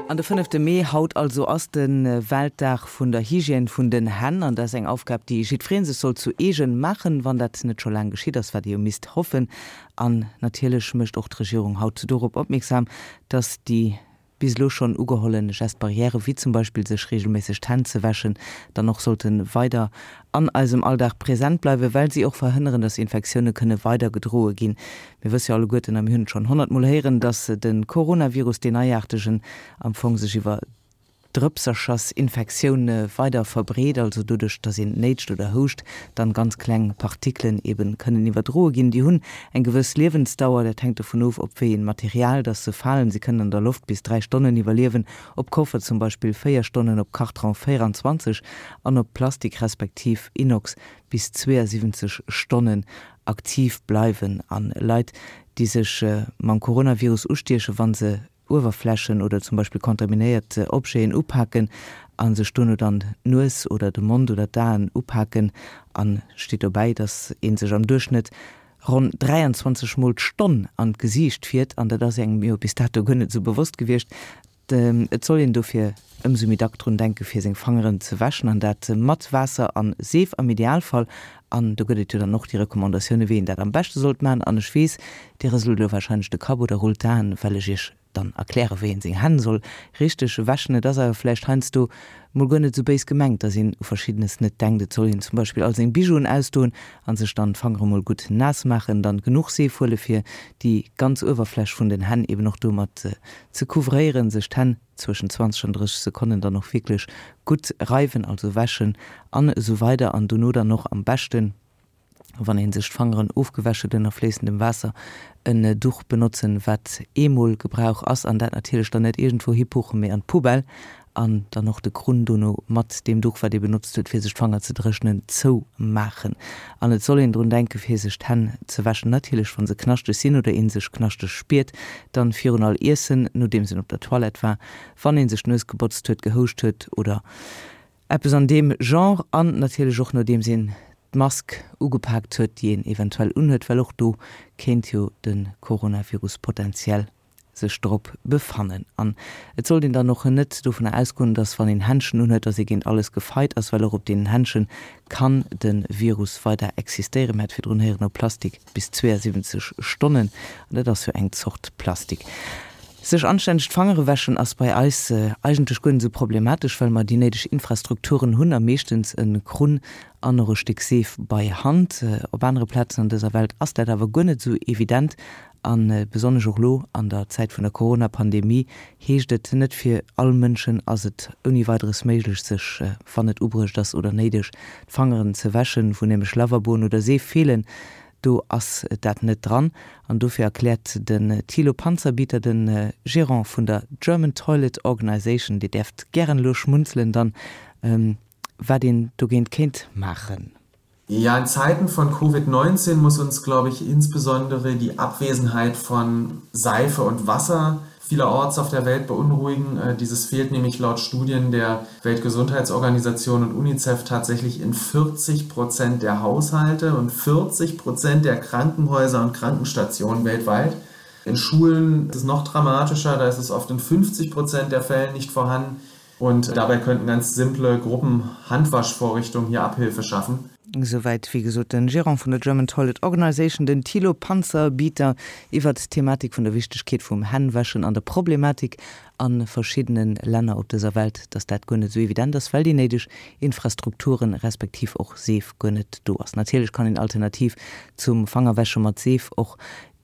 An de fënnefte Mee, haut also, ass de Weltdag vun der Hygiène vun den Hänn. An dat ass eng Aufgab, déi jiddweree sech soll zu eegen maachen, wann dat net scho laang geschitt ass, wat ee jo misst hoffen. An natierlech mécht och d'Regierung haut dorop opmierksam, dass déi bis elo schonn ugeholle Gestes barrières, wéi zum Beispill sech reegelméisseg d'Hänn ze wäschen, dann och sollte weider an eisem Alldag present bleiwen, well si och verhënneren, dass Infektioune kënne weider gedroe ginn. Mir wësse jo alleguerten, a mir hunn et schonn honnertmol héieren, dass de Coronavirus, deen neiaartegen, am Fong sech iwwer Drëpserchersinfektioun weider verbreet, also doduerch, dass een néitscht oder houscht, dann ganz kleng Partikelen eben kënnen iwwerdroe ginn. Déi hunn eng gewëss Liewensdauer, dat hänkt dovun of, op wéi een Material dass se falen. Se kënnen an der Loft bis 3 Stonnen iwwerliewen, op Koffer zum Beispill 4 Stonnen, op Kartron 24 an op Plastik respektiv Inox bis 72 Stonnen aktiv bleiwen. An Leit, déi sech mam Coronavirus ustiechen, wa se Uewerflächen oder zum Beispill kontaminéiert Objeten upaken a sech dono dann d'Nues oder de Mond oder d'Aen upaken. An steet dobäi, dass ee sech am Duerchschnëtt ronn 23 Mol d'Stonn an d'Gesiicht fiert. An dat ass engem jo bis dato guer net esou bewosst gewiescht. Et soll een dofir ëmsou méi dack drun denke fir seng Fangeren ze wäschen an dat mat Waasser an Seef am Idealfall. An do gëtt et jo dann och déi Recommandatioune wéi een dat am beschte sollt maachen. An ech weess, Dir rëselt elo warscheinlech de Kapp oder rullt d'Aen, well ech Iech dann erkläre wéi een seng Hänn soll richteg wäschen. Et ass awer vläicht heiansdo mol guer net esou béis gemengt, dass een u Verschiddenes net denkt. Et soll een zum Beispill all seng Bijouen ausdoen an sech dann d'Fangere mol gutt naass maachen, dann genuch Seef huele fir déi ganz Uewerfläch vun den Hänn eben och domat ze couvréieren, sech d'Hänn zwëschen 20 an 30 Sekonnen dann och wierklech gutt reiwen, also wäschen an esou weider an dono dann och am beschten, wann een sech d'Fangeren ofgewäsch huet, ënner fléissendem Waasser en Duch benotzen, wat eemol Gebrauch ass an dat natierlech dann net iergendwou hipuchen, mee an d'Poubelle an dann och de Krunn dono mat deem Duch, wat ee benotzt huet, fir sech d'Fanger ze dréchnen, zoumaachen. An et soll een drun denken, fir sech d'Hänn ze wäschen, natierlech wa se knaschteg sinn oder ee sech knaschteg spiert, dann virun all Iessen, nodeems een op der Toilette war, wann ee sech d'Nues gebotzt huet, gehouscht huet oder eppes an deem Genre an natierlech och nodeems een d'Mask ugepaakt huet, déi een eventuell unhuet, well och do kéint jo de Coronavirus potenziell sech drop befannen. An et sollt een dann och net dovunner ausgoen, dass wann een Händschen unhuet, dass ee géint alles gefeit ass, well och op deenen Händschen kann de Virus weider existéieren. Mir hat virdrun héieren, op Plastik bis 72 Stonnen, an dat ass jo eng Zort Plastik. Sech anstänneg d'Fangere wäschen ass bei eis eigentlech guer net esou problematesch, well mer déi néideg Infrastrukturen hunn a meeschtens e Krunn an och e Stéck Seef bei Hand. Op anere Plazen an dëser Welt ass dat awer guer net esou evident a besonnesch och elo an der Zäit vun der Corona-Pandemie heescht et, net fir all Mënschen ass et ouni Weideres méiglech, sech, wann et ubruecht ass oder néideg, d'Fangeren ze wäschen, wou nämlech Lavaboen oder Seef feelen. Do ass dat net dran. An dofir erkläert den Thilo Panzerbieter, de Gerant vun der German Toilet Organization, Dir däerft gären elo schmunzelen dann, wat een dogéint kéint maachen. Ja, in Zeiten von Covid-19 muss uns, glaube ich, insbesondere die Abwesenheit von Seife und Wasser vielerorts auf der Welt beunruhigen. Äh, dieses fehlt nämlich laut Studien der Weltgesundheitsorganisation und UNICEF tatsächlich in 40 Prozent der Haushalte und 40 Prozent der Krankenhäuser und Krankenstationen weltweit. In Schulen ist es noch dramatischer, da ist es oft in 50 Prozent der Fällen nicht vorhanden. Und dabei könnten ganz simple Gruppenhandwaschvorrichtungen hier Abhilfe schaffen. Esouwäit, wéi gesot, de Gerant vun der German Toilet Organization, den Thilo Panzerbieter, iwwert d'Thematik vun der Wichtegkeet vum Hännwäschen an der Problematik a verschiddene Länner op dëser Welt, dass dat guer net esou evident ass, well déi néideg Infrastrukturen, respektiv och Seef guer net do ass. Natierlech kann een alternativ zum Fangerwäsche mat Seef och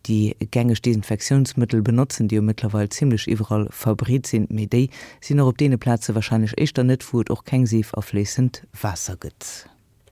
déi gängeg Desinfektiounsmëttel benotzen, déi jo mëttlerweil zimlech iwwerall verbreet sinn, mee déi sinn och op deene Plaze wahrscheinlech éischter net, wou et och keng Seef a fléissend Waasser gëtt.